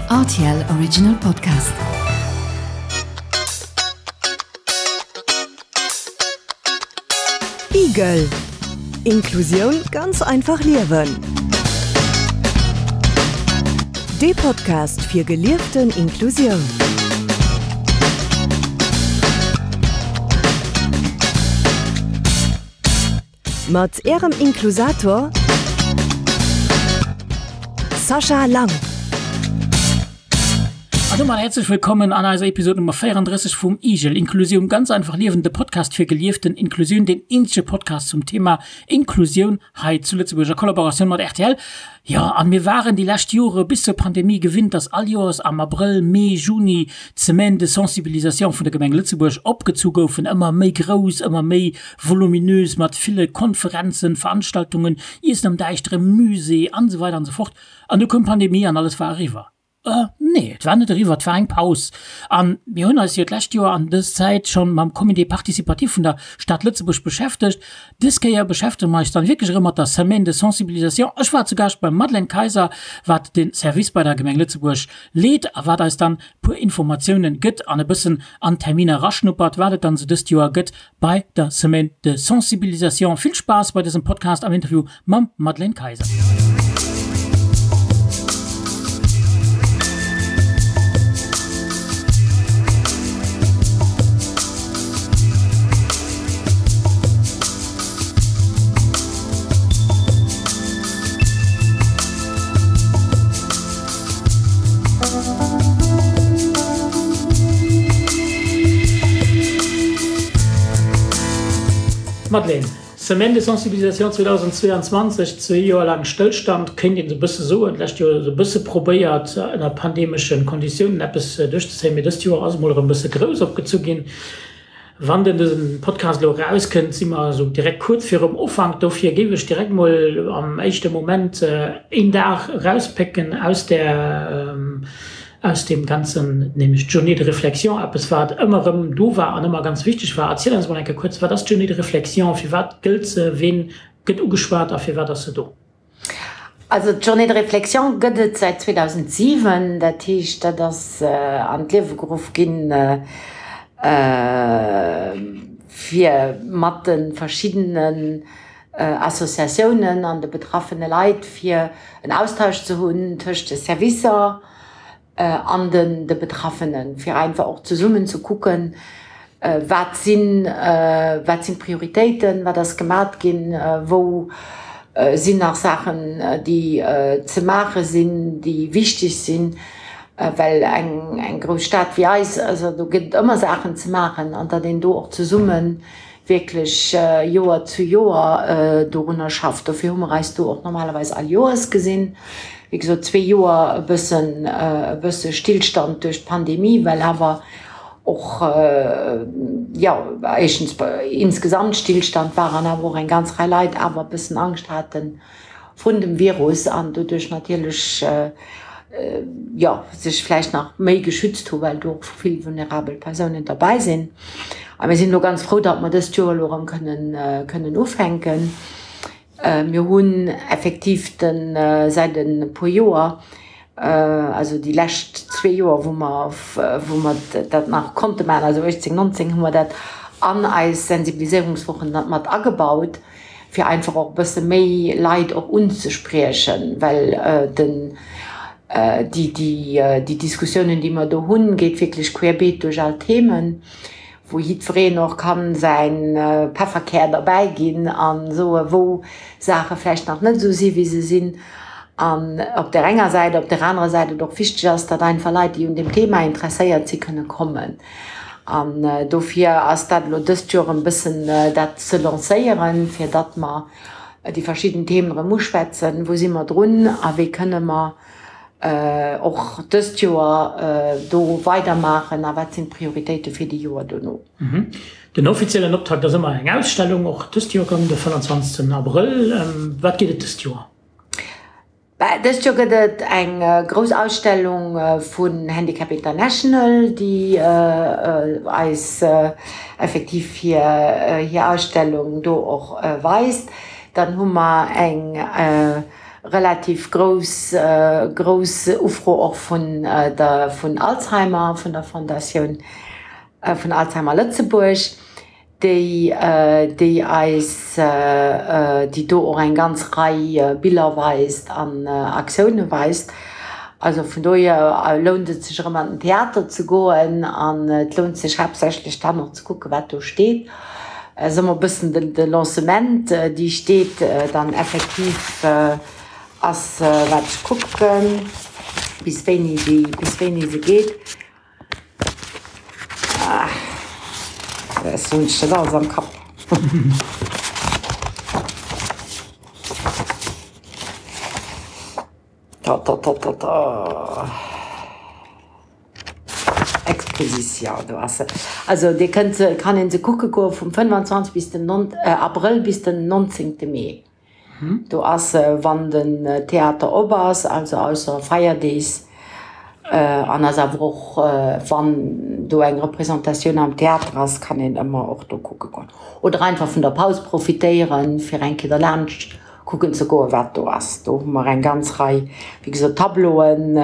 Rtl Original Podcast. Igel. Inklusioun ganz einfach liewen. Dee Podcast fir gelieften Inklusioun. Mat Ärem Inklusator Sascha Lang. An domat häerzlech wëllkommen an eiser Episode Nummer 34 vum IGEL, Inklusioun ganz einfach liewen, de Podcast fir gelieften Inklusioun, deen eenzege Podcast zum Thema Inklusioun hei zu Lëtzebuerg a Kollaboratioun mat rtl. Jo, an mir waren déi lescht Jore bis zur Pandemie gewinnt, dass all Joers am Abrëll, Mee, Juni d'Semaine de sensibilisation vun der Gemeng Lëtzebuerg opgezu goufen, ëmmer méi grouss, ëmmer méi voluminös, mat ville Konferenzen, Veranstaltungen, Iessen am däischtere Musée an esou weider an esou fort. An du koum d'Pandemie an alles war eriwwer. Nee, et war net eriwwer, et war eng Paus. A mir hunn eis jo d'lescht Joer an dës Zäit schonn mam Comité participatif vun der Stad Lëtzebuerg beschäftegt. Dës Kéier beschäftege mer eis dann wierklech erëm mat der Semaine de sensibilisation. Ech war zu Gaascht beim Madeleine Kayser, wat de Service bei der Gemeng Lëtzebuerg leet a wat eis dann puer Informatiounen gëtt an e bëssen an d'Terminer eraschnuppert, wat et dann esou dëst Joer gëtt bei der Semaine de Sensibilisation. Vill Spaass bei dësem Podcast am Interview mam Madeleine Kayser. Madeleine, Semaine de sensibilisation 2022, zwee Joer laang Stëllstand, kéint een esou e bësse soen. D'lescht Joer esou e bësse probéiert, ënner pandemesche Konditiounen eppes duerchzezéien, mee dëst Joer ass emol erëm e bësse grouss opgezu ginn. Wann den dësen Podcast elo erauskënnt, si mer esou direkt kuerz virum Ufank. Dofir géif ech direkt mol am éischte Moment een Dag erauspécken aus där, aus deem Ganzen, nämlech d'Journée de réflexion, eppes wat ëmmer erëm do war an ëmmer ganz wichteg war. Erziel eis mol eng Kéier kuerz, wat ass d'Journée de réflexion, firwat gëllt se, ween gëtt ugeschwat a firwat ass se do? Also d'Journée de réflexion gëtt et säit 2007, dat heescht dat ass an d'Liewe geruff ginn, fir mat de verschiddenen Associatiounen an de betraffene Leit fir en Austausch ze hunn tëscht de Servicer, an de Betraffenen, fir einfach och zesummen ze kucken, wat sinn, wat sinn d'Prioritéiten, wat ass gemat ginn, wou sinn nach Saachen, déi ze maache sinn, déi wichteg sinn, well eng grouss Stad wéi eis, also do gëtt et ëmmer Saachen ze maachen an datt een do och zesummen wierklech Joer zu Joer dorunner schafft. Dofir hu mer eis do och normalerweis all Joers gesinn. Wéi gesot, zwee Joer e bëssen, e bësse Stillstand duerch d'Pandemie, well awer och, jo, éischtens insgesamt Stillstand war an awer och eng ganz Rei Leit awer e bëssen Angscht haten, vun dem Virus an doduerch natierlech, jo, sech vläicht nach méi geschützt hu well do och vill vulnerabel Persounen derbäi sinn. A mir sinn elo ganz frou, datt mer dëst Joer elo erëm kënnen, kënnen ufänken. Mir hunn effektiv de säit e puer Joer, also déi lescht zwee Joer, wou mer, wou mer dat nach konnte maachen, also 18, 19, hu mer dat an eis Sensibiliséierungswochen mat agebaut. fir einfach och e bësse méi Leit och unzespriechen, well den, déi, déi, déi Diskussiounen, déi mer do hunn, geet wierklech querbeet duerch all Themen, wou jiddwereen och kann säin Pefferkär derbäi ginn a soe wou Saache vläicht nach net esou si wéi se sinn. An op där enger Säit, op där anerer Säit et och wichteg ass, datt einfach Leit, déi un deem Thema interesséiert si kënne kommen. An dofir ass dat elo dëst Joer e bëssen dat ze lancéieren, fir datt mer déi verschidden Themen erëm uschwätzen, wou si mer drun a wéi kënne mer och dëst Joer do weidermaachen a wat sinn d'Prioritéite fir déi Joer dono. Den offiziellen Optakt ass ëmmer eng Ausstellung, och dëst Joer erëm de 25 Abrëll. Wat geet et dëst Joer? Dëst Joer gëtt et eng grouss Ausstellung vun Handicap International, déi eis effektiv hir hir Ausstellung do och weist. Dann hu mer eng. Relativ grouss grouss Ufro och vun der vun Alzheimer, vun der Fondatioun vun Alzheimer Lëtzebuerg, déi déi eis déi do och eng ganz Rei Biller weist an Aktioune weist. Also vun dohier lount et sech erëm an den Theater ze goen an et lount sech haaptsächlech dann och ze kucke wat do steet. Ass ëmmer e bëssen de Lancement, déi steet dann effektiv ass, wat ech kucken, bis wéini déi, bis wéini se geet. Ech hunn dat alles am Kapp. Ta ta ta ta ta. Exposition, do ass se. Also Dir kënnt se, kann een se kucke goe vum 25 bis den non, Abrëll bis den 19. Mee. Do ass se, wann den Theater op ass, also ausser Feierdees, an ass awer och, wann do eng Representatioun am Theater ass, kann een ëmmer och do kucke goen. Oder einfach vun der Paus profitéieren, fir eng Kéier derlaanscht kucken ze goen, wat do ass. Do hu mer eng ganz Rei, wéi gesot, Tableauen,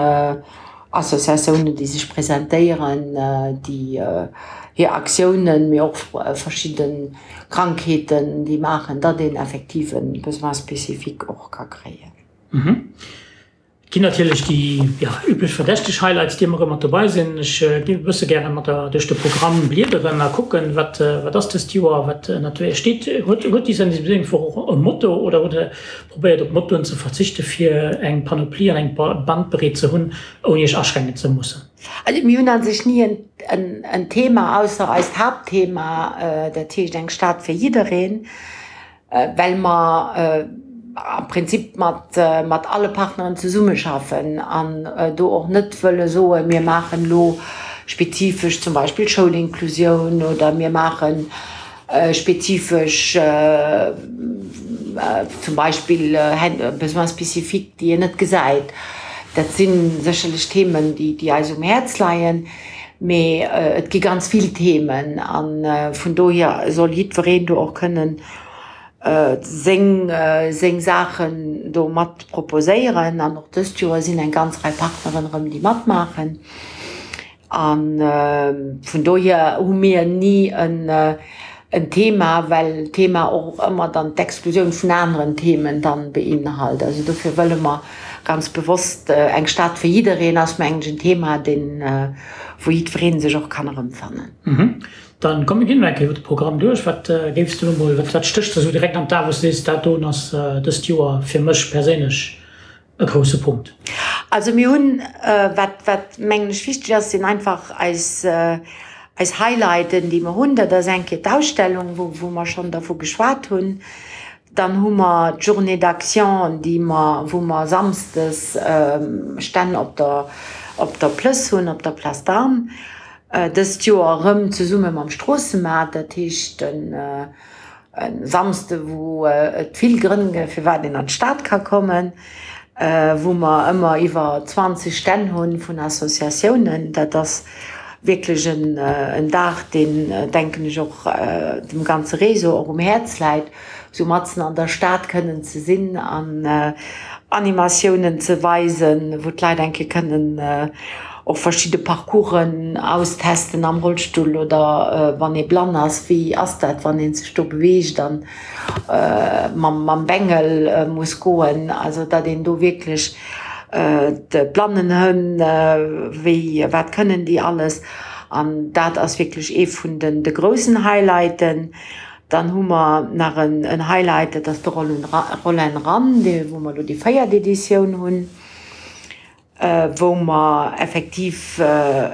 Associatiounen, déi sech presentéieren, déi hir Aktiounen, mee och verschidde Krankheeten, déi maachen, datt een effektiv e Besoin spécifique och ka kréien. Et ginn natierlech déi, jo, üblech verdächteg Highlights, déi ëmmer erëm mat dobei sinn. Ech géif e bësse gäre mat der duerch de Programm bliederen a kucken, wat, wat ass dëst Joer, wat ënnert wéi steet. Huet, huet déi Sensibiliséierungswoch och e Motto oder hutt Der Probéiert op Mottoen ze verzichte fir eng Panoplie an eng Bandbreet ze hunn, ouni iech aschränken ze mussen. Also mir hunn a sech ni en Thema, ausser eist Haaptthema, dat heescht eng Stad fir jiddereen, well mer am Prinzip mat alle Partneren zesummeschaffen an do och net wëlle soen, mir maachen elo spezifesch zum Beispill Schoulinklusioun oder mir maachen Spezifesch, zum Beispill Besoins spécifiques, déi een net gesäit. Dat si sécherlech Themen, déi eis um Häerz leien, mee et gi ganz vill Themen a vun dohier soll jiddwereen do och kënnen seng Saachen do mat proposéieren. An och dëst Joer sinn eng ganz Rei Partneren erëm, déi matmaachen. A vun dohier hu mir ni en Thema, well d'Thema och ëmmer dann d'Exklusioun vun aneren Themen dann beinhalt. Also dofir wëlle mer ganz bewosst eng Stad fir jiddereen ass mengen ech en Thema, deen, wou jiddweree sech och kann erëmfannen. Dann komm mir ginn elo eng Kéier iwwer de Programm duerch. Wat géifs de elo mol, wat stécht der esou direkt an d'A wou s de sees, dat doen ass dëst Joer fir mech perséinlech e grousse Punkt. Also mir hunn, wat, wat mengen ech wichteg ass, sinn einfach eis, eis Highlighten, déi mer hunn. Dat ass eng Kéier d'Ausstellung, wou, wou mer schonn dervu geschwat hunn. Dann hu mer d'Journée d'action, déi mer, wou mer samsdes Stänn op der, op der Plëss hunn, op der Place d'Armes. Dëst Joer erëm zesumme mam Stroossemaart, dat heescht den, E Samsde wou et vill Grënn gëtt firwat een an d'Stad ka kommen, wou mer ëmmer iwwer 20 Stänn hunn vun Associatiounen. Dat ass wierklech en Dag deen, denken ech, och dem ganze Réseau och um Häerz läit, esou matzen an der Stad kënnen ze sinn an Animatiounen ze weisen, wou d'Leit eng Kéier kënnen och verschidde Parcoursen austesten am Rollstull oder wann ee blann ass, wéi ass dat, wann ee sech do beweegt an mam Bengel muss goen. Also datt een do wierklech d'Blannenhënn, wéi, wat kënnen déi alles. An dat ass wierklech ee vun de groussen Highlighten. Dann hu mer nach en Highlight, dat ass de Roll and Run, wou mer elo déi véiert Editioun hunn. wou mer effektiv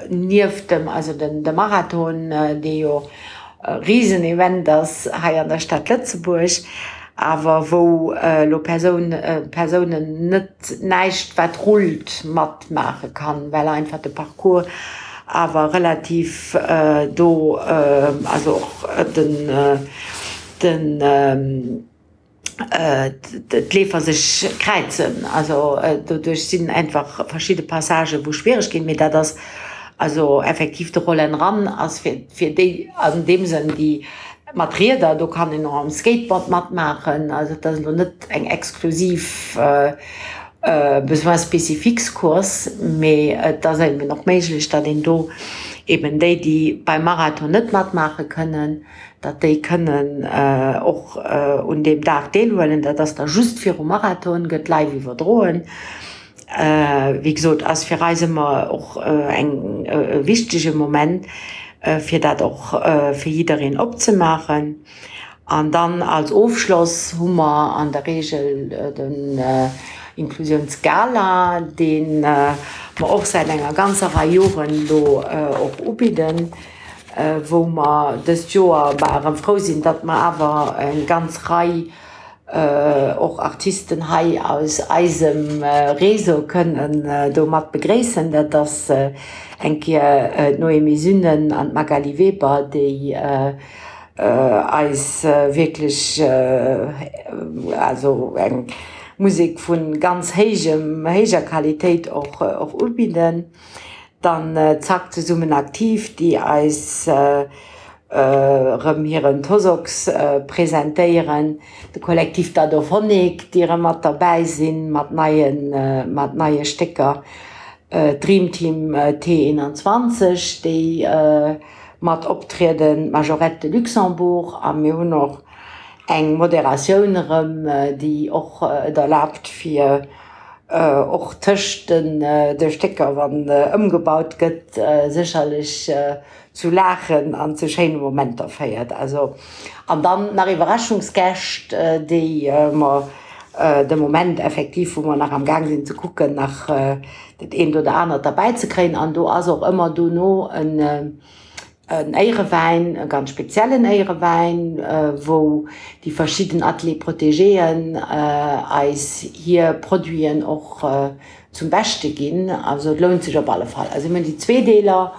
nieft dem, also de Marathon, dee jo e Risenevent ass hei an der Stad Lëtzebuerg, awer wou elo Persoun, Persounen net näischt wat rullt matmaache kann, well einfach de Parcours awer relativ do, also och den, den, d'Leefer sech kräizen. Also doduerch sinn einfach verschidde Passagen, wou schwiereg ginn. Mee dat ass also effektiv de Roll and Run ass fir, fir déi an deem Sënn, déi. Mat Rieder, do kann een och am Skateboard matmaachen. Also et ass elo net eng exklusiv Besoins spécifiques Course, mee et ass eben och méiglech, datt een do eben déi, déi beim Marathon net matmaache kënnen, datt déi kënnen och un deem Dag deelhuelen. Dat ass da just virum Marathon, gëtt live iwwerdroen. Wéi gesot, ass fir eis ëmmer och eng e wichtege Moment, fir dat och fir jiddereen opzemaachen. An dann als Ofschloss hu mer an der Reegel den Inklusiounsgala, dee mer och säit enger ganzer Rei Joren elo och ubidden, wou mer dëst Joer bah erëm frou sinn, datt mer awer eng ganz Rei och Artisten hei aus eisem Réseau kënnen do mat begréissen. Dat ass eng Kéier d'Noémie Sünnen an d'Magali Weber, déi eis wierklech also eng Musek vu ganz héijem, héijer Qualitéit och ubidden. Dann Zack Zesummen Aktiv, déi eis erëm hiren Tosox presentéieren, de Kollektiv Dadophonik, déi erëm mat derbäi sinn mat neien, mat neie Stécker, d'Dream Team T21, déi mat optrieden, d'Majorette de Luxembourg a mir hunn och eng Moderatioun erëm, déi och et erlaabt fir och tëscht de Stécker, wann ëmgebaut gëtt, sécherlech zu Laachen an zu schéine Momenter féiert. Also, an dann nach Iwwerraschungsgäscht, déi mer de Moment effektiv, wou mer nach am Gaang sinn ze kucken, nach dat eent oder anert derbäi ze kréien. An do ass och ëmmer dono en Éierewäin, e ganz speziellen Éierewäin, wou déi verschidden Ateliers protégéen eis hir Produiten och zum Beschte ginn. Also et lount sech op alle Fall. Also mir hunn déi zwee Deeler,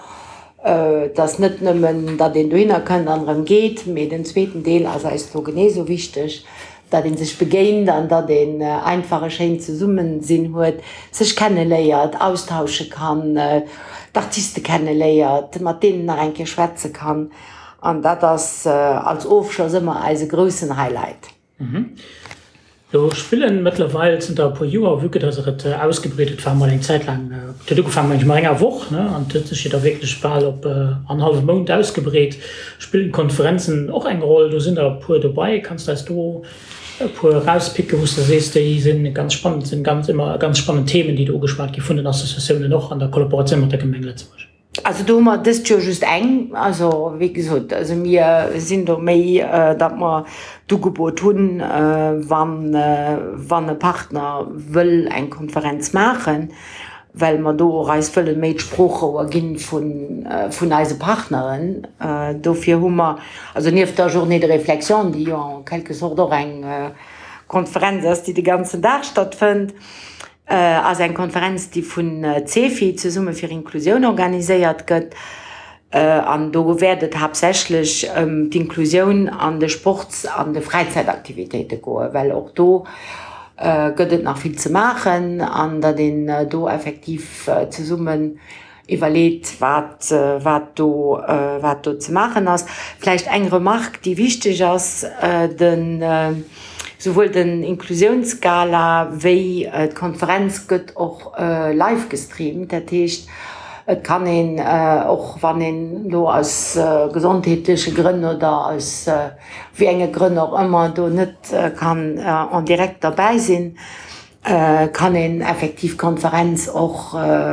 et ass net nëmmen, datt een dohinner kënnt an erëm geet, mee den zweeten Deel ass eis do genee esou wichteg, datt ee sech begéint an datt een einfach e schéint Zesummesinn huet, sech kenneléiert, austausche kann, d'Artiste kenneléiert, mat deenen nach eng Kéier schwätze kann. An dat ass als Ofschloss ëmmer eise groussen Highlight. Do spillen mëttlerweil zënter e puer Joer, vue que dass et ausgebreet huet, war mol eng Zäit laang, et huet ugefaangen mengen ech mat enger Woch, ne, an et huet sech jo da wierklech bal op en hallwe Mount ausgebreet. Spillen d'Konferenzen och eng Roll? Do sinn der e puer dobei. Kanns de eis do e puer erauspicken, wou s de sees, déi sinn ganz spannend, sinn ganz ëmmer ganz spannend Themen, déi do ugeschwat gi vun den Associatiounen och an der Kollaboratioun mat der Gemeng Lëtzebuerg? Also do hu mer dëst Joer just eng. Also wéi gesot, also mir sinn do méi, datt mer d'Ugebot hunn, wann, wann e Partner wëll eng Konferenz maachen, well mer do och eis wëlle méi d'Sproochrouer gi vun, vun eise Partneren. Dofir hu mer, also nieft der Journée de réflexion, déi jo en quelque sorte och eng Konferenz ass, déi de ganzen Dag stattfënnt, ass eng Konferenz, déi vun CEFI, Zesumme fir Inklusioun, organiséiert gëtt. An do wäert et haaptsächlech ëm d'Inklusioun an de Sports an de Fräizäitaktivitéite goen, well och do gëtt et nach vill ze maachen an datt een do effektiv zesummen iwwerleet, wat, wat do, wat do ze maachen ass. Vläicht eng Remarque, déi wichteg ass, Den, souwuel den Inklusiounsgala wéi d'Konferenz gëtt och live gestreamt. Dat heescht, et kann een, och wann een elo aus gesondheetleche Grënn oder aus wéi enge Grënn och ëmmer do net kann en direct derbäi sinn, Kann een effektiv d'Konferenz och,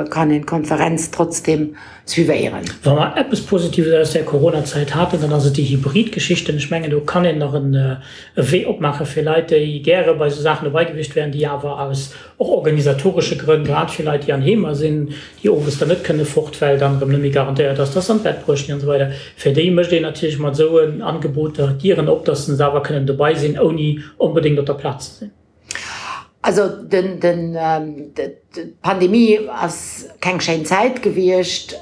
kann een d'Konferenz trotzdem suivéieren. Wa mer eppes Positives aus där Coronazäit haten, dann ass et déi Hybrid-Geschichten. Ech mengen, do kann een nach e Wee opmaache fir Leit, déi gäre bei esou Saachen dobei gewiescht wären, déi awer aus och organisatoresche Grënn, grad fir Leit, déi an Heemer sinn, déi owes dann net kënne fort, well dann erëm net méi garantéiert ass, dass se an d'Bett bruecht ginn an esou weider, fir déi mécht een natierlech mat esou Angeboter d'Dieren op, dass se awer kënnen dobei sinn, ouni onbedéngt op der Plaz ze sinn. Also den, den, d'Pandemie ass keng schéin Zäit gewiescht,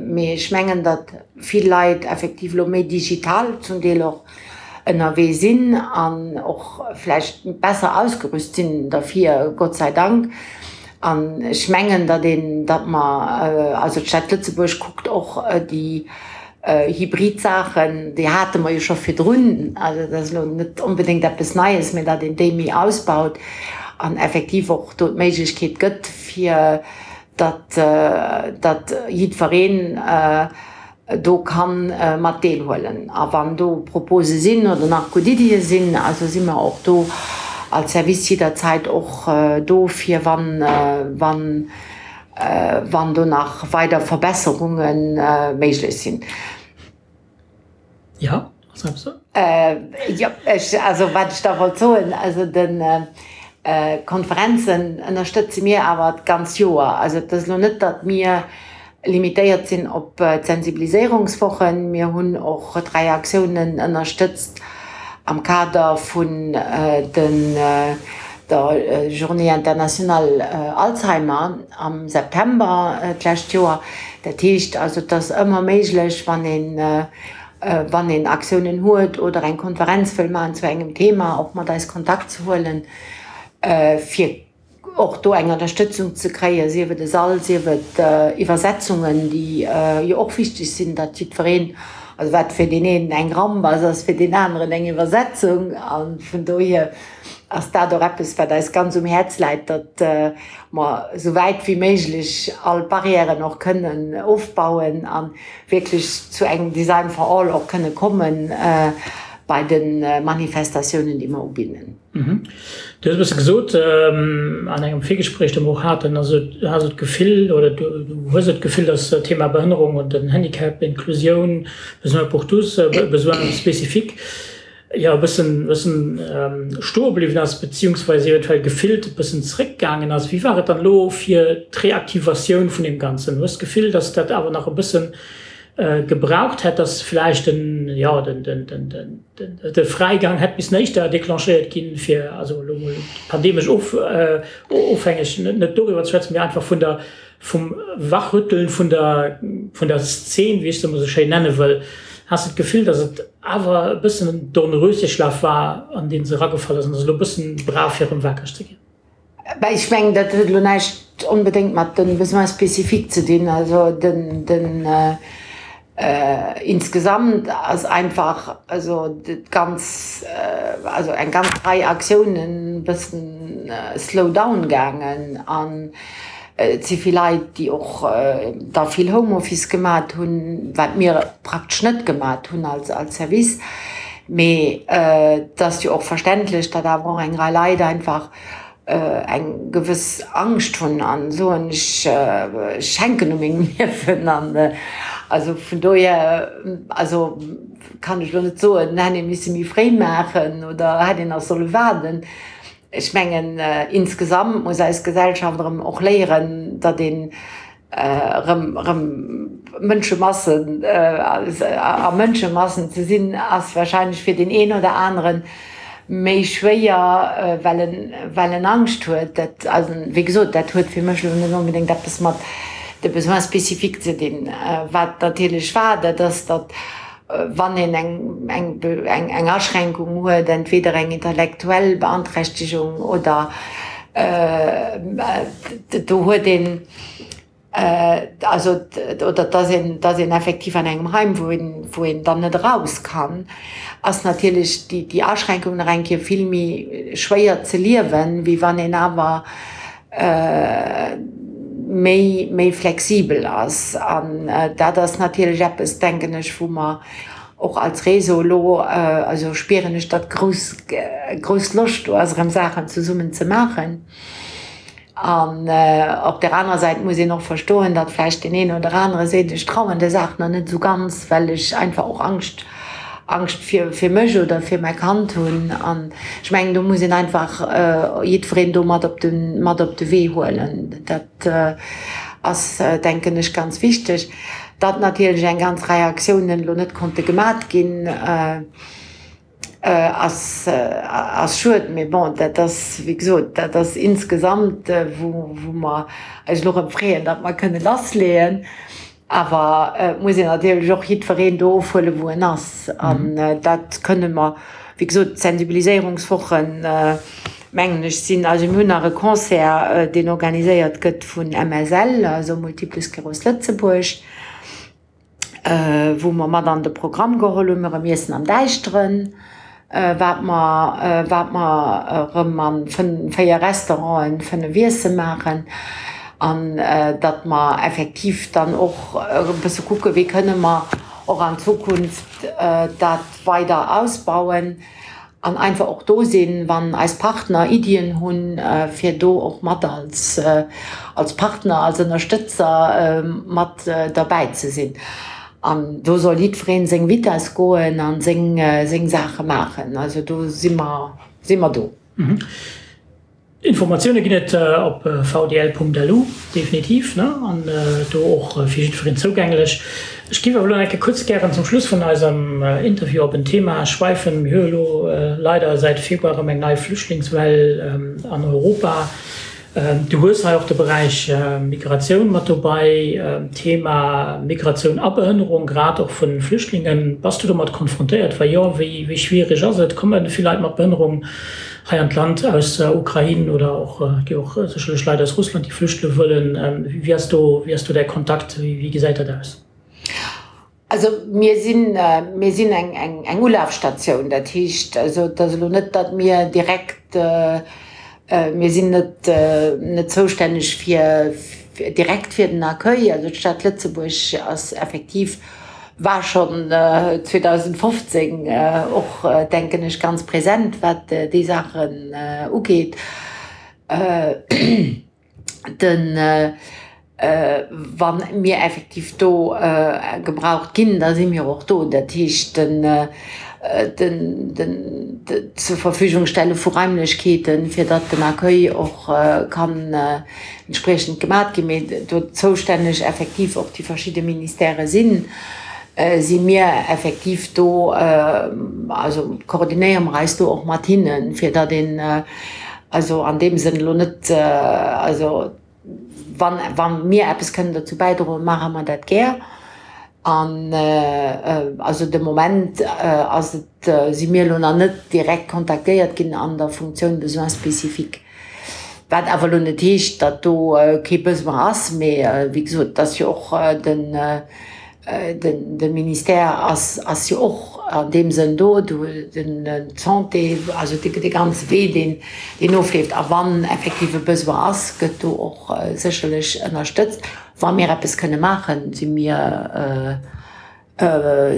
mee ech mengen, datt vill Leit effektiv elo méi digital zum Deel och ënnerwee sinn an och vläicht besser ausgerüst sinn derfir, Gott sei Dank. An ech mengen, datt een, datt mer, also d'Stad Lëtzebuerg kuckt och déi. Hybrid Saachen, déi hate mer jo scho virdrun, also dat ass elo net onbedéngt eppes Neies, mä datt een déi méi ausbaut an effektiv och do d'Méiglechkeet gëtt, fir datt, datt jiddwereen do ka mat deelhuelen. A wann do Propose sinn oder nach gutt Iddie sinn, also si mer och do als Service jidderzäit och do, fir wann, wann wann do nach weider Verbesserunge méiglech sinn. Jo, ass eppes do? Jo, ech, also wat ech da wollt soen, also de Konferenzen ënnerstëtze mir awer d'ganz Joer. Also et ass elo net, datt mir limitéiert sinn op d'Sensibiliséierungswochen. Mir hunn och 3 Aktiounen ënnerstëtzt am Kader vun den der Journée internationale Alzheimer am September d'lescht Joer. Dat heescht also, et ass ëmmer méiglech, wann een, wann een Aktiounen huet oder eng Konferenz wëll maachen zu engem Thema, och mat eis Kontakt ze huelen, fir och do eng Ënnerstëtzung ze kréien, sief et e Sall, sief et Iwwersetzungen, déi jo och wichteg sinn, datt jiddwereen, also wat fir deen een eng Ramp ass, ass fir deen aneren eng Iwwersetzung. A vun dohier ass dat och eppes, wat eis ganz um Häerz läit, datt mer esou wäit wéi méiglech all Barrièren och kënnen ofbauen a wierklech zu engem Design for all och kënne komme bei de Manifestatiounen, déi mer ubidden. Du hues e bësse gesot an engem Virgespréich, dat mer och haten, also du has et d'Gefill oder du hues et d'Gefill, datt d'Thema Behënnerung und den Handicap, Inklusioun, Besoins pour tous, Besoins spécifiques, jo e bëssen, bëssen stoe bliwwen ass, beziehungsweise eventuell gefillt e bëssen zréckgaangen ass. Wéi war et dann elo fir d'Reaktivatioun vun deem Ganzen? Hues d'Gefill, datt dat awer nach e bëssen gebraucht hätt, dass vläicht den, jo, den, den, den, den, de Fräigang hätt missen éischter déclenchéiert ginn, fir also elo mol pandemesch of, ofhängeg net doriwwer ze schwätzen, mee einfach vun der, vum Wachrütteln vun der, vun der Szen, wéi ech se emol esou schéin nenne wëll. Has de d'Gefill, dass et awer e bëssen en Dornröschenschlaf war, an dee se eragefall ass an dass et elo e bëssen brauch, fir erëm wakereg ze ginn? Ben, ech mengen, dat huet elo näischt onbedéngt mat de Besoins spécifiques ze dinn. Also den, den insgesamt ass einfach also d'ganz, also eng ganz Rei Aktiounen e bëssen slow down gaangen an et si vill Leit, déi och da vill Homeoffice gemat hunn, wat mir praktesch net gemat hunn als als Service. Mee et ass jo och verständlech, datt awer och eng Rei Leit einfach eng gewëss Angscht hunn an soen, ech ech hänken u mengem Liewen. An also vun dohier, also kann ech elo net soen, hätt ee misse méi fréi maachen oder hätt een nach solle waarden. Ech mengen, insgesamt muss eis Gesellschaft erëm och léieren, datt een erëm erëm Mënschemassen a Mënschemassen ze sinn, ass wahrscheinlech fir deen een oder anere méi schwéier, well en well en Angscht huet. Dat also wéi gesot, dat huet fir mech elo net onbedéngt eppes mat de Besoins spécifiques ze dinn. Wat natierlech war, dat ass, datt wann een eng eng eng Aschränkung huet, entweder eng intellektuell Beanträchtegung oder do huet een also oder dass een dass een effektiv an engem Heim wou een wou een dann net eraus kann, ass natierlech déi déi Aschränkung nach eng Kéier vill méi schwéier ze liewen, wéi wann een awer méi, méi flexibel ass. An dat ass natierlech eppes, denken ech, wou mer och als Réseau elo, also spieren ech, datt grouss, grouss Loscht do ass, erëm Saachen zesummen ze maachen. An op där anerer Säit muss een och verstoen, datt vläicht deen een oder anere seet, ech trauen der Saach nach net esou ganz, well ech einfach och Angscht Angscht fir, fir mech oder fir mäi Kand hunn. An ech mengen, do muss een einfach jiddwereen do mat op de, mat op de Wee huelen. Dat ass, denken ech, ganz wichteg. Datt natierlech eng ganz Rei Aktiounen elo net konnte gemat ginn, ass, ass schued. Mee bon, dat ass, wéi gesot, dat ass insgesamt, wou, wou mer eis elo erëm freeën, datt mer kënne lassleeën. Awer et muss een natierlech och jiddwereen do ofhuelen, wou en ass. An dat kënne mer, wéi gesot, d'Sensibiliséierungswochen, mengen ech, sinn, also mir hunn nach e Concert, deen organiséiert gëtt vun MSL, also Multiple Sclerose Lëtzebuerg. wou mer mat an de Programm geholl hunn, erëm Iessen am Däischteren, wat mer, wat mer erëm a 4 Restauranten 5 Iesse maachen an datt mer effektiv dann och e bësse kucken, wéi kënne mer och an Zukunft dat weider ausbauen. An einfach och do sinn, wann eis Partner Iddien hunn, fir do och mat als, als Partner, als Ënnerstëtzer mat derbäi ze sinn. An do soll jiddweree seng Vitess goen a seng, seng Saache maachen. Also do si mer, si mer do. Informatioune ginn et op vdl.lu, definitiv, ne? An do och fir jiddwereen zougänglech. Ech géif awer elo nach eng Kéier kuerz gären zum Schluss vun eisem Interview op en Thema schwäifen. Mir hu elo leider säit Februar erëm eng nei Flüchtlingswell an Europa. Du hues hei och de Beräich Migratioun mat dobei, Thema Migratioun a Behënnerung, grad och vu Flüchtlingen. Bass du domat konfrontéiert? Wa jo, wéi schwierig ass et? Komme vill Leit mat Behënnerung hei an d'Land aus der Ukrain oder och, et gi och sécherlech Leit aus Russland, déi flüchtele wëllen. Wéi ass do, wéi ass do däi Kontakt? Wéi gesäit dat aus? Also mir sinn, mir sinn eng, eng, eng Ulafstatioun. Dat heescht also, et ass elo net, datt mir direkt, mir sinn net, net zoustänneg fir, direkt fir den Accueil. Also d'Stad Lëtzebuerg ass effektiv, war schonn 2015 och, denken ech, ganz present, wat déi Saachen ugeet. Den, wa mir effektiv do gebraucht ginn, da si mir och do. Dat heescht, den, den, den, d'Zurverfügungstelle vu Raimlechkeeten, fir datt den Accueil och kann entspriechend gemat ginn, mee do zoustänneg effektiv och déi verschidde Ministèrë sinn, si mir effektiv do, also koordinéiere mer eis do och mat hinnen, fir datt een also an deem Sënn elo net, also wann, wa mir eppes kënnen dozou bäidroen, maache mer dat gär. An also de Moment ass et, si mir elo nach net direkt kontaktéiert ginn an der Funktioun Besoins spécifiques. Wat awer elo net heescht, datt do kee Besoin ass, mee wéi gesot, et ass jo och den, de Ministère ass, ass jo och an deem Sënn do, do den d'Santé, also de ganze Wee, deen, deen ofleeft. A wann effektiv e Besoin ass, gëtt do och sécherlech ënnerstëtzt. Wa mir eppes kënne maachen, si mir,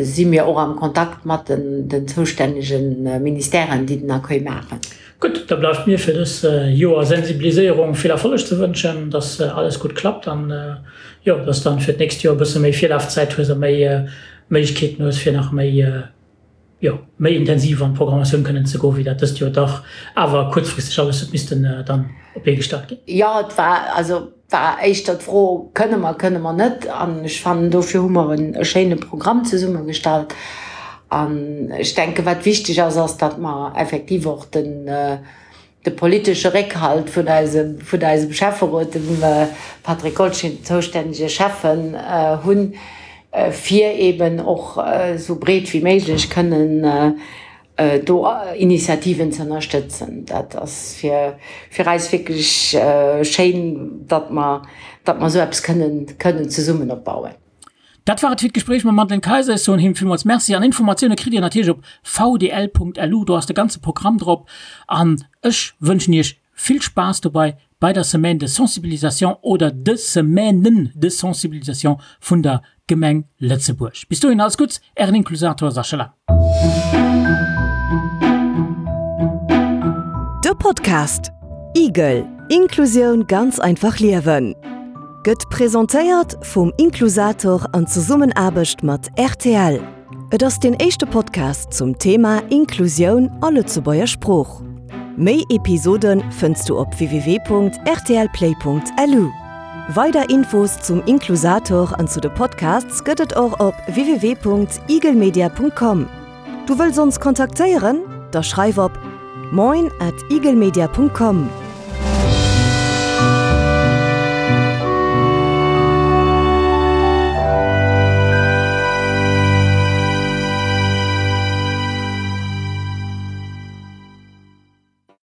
si mir och am Kontakt mat den zoustännege Ministèren, déi den Accueil maachen. Gutt, da bleift mir fir dës Joer Sensibiliséierung vill Erfolleg ze wënschen, dass alles gutt klappt an, jo, dass dann fir d'nächst Joer e bësse méi Virlafzäit hues a méi Méiglechkeeten hues, fir nach méi, jo, méi intensiv an d'Programmatioun kënnen ze goen, wéi dat dëst Joer dach awer kuerzfristeg alles huet missten dann op d'Bee gestallt ginn. Jo, et war, also war éischter d'Fro, Kënne mer, kënne mer net? An ech fannen, dofir hu mer e schéine Programm zesummegestallt. An ech denken, wat wichteg ass, ass, datt mer effektiv och den, de politesche Réckhalt vun eisem, vun eisem Schäfferot, dem Patrick Goldschmidt, zoustännege Schäffen, hunn, fir eeben och esou breet wéi méiglech kënnen do Initiativen ze ënnerstëtzen. Dat ass fir, fir eis wierklech schéin, datt mer, datt mer esou eppes kënnen, kënnen zesummen opbauen. Dat war et fir d'Gespréich mam Madeleine Kayser. Ech soen him villmools Merci an Informatioune kritt Dir natierlech op vdl.lu, do ass de ganze Programm drop. An ech wënschen Iech vill Spaass dobei bei der Semaine de sensibilisation oder de Semainen de sensibilisation vun der Gemeng Lëtzebuerg. Bis dohin alles Gutts, Ären Inklusator Sascha Lang. De Podcast Igel, Inklusioun ganz einfach liewen gëtt presentéiert vum Inklusator an Zesummenaarbecht mat rtl. Et ass deen éischte Podcast zum Thema Inklusioun a Lëtzebuerger Sprooch. Méi Episode fënns du op www.rtlplay.lu. Weider Infos zum Inklusator an zu de Podcasts gëtt et och op www.igelmedia.com. Du wëlls ons kontaktéieren? Da schreif op moin at igelmedia.com.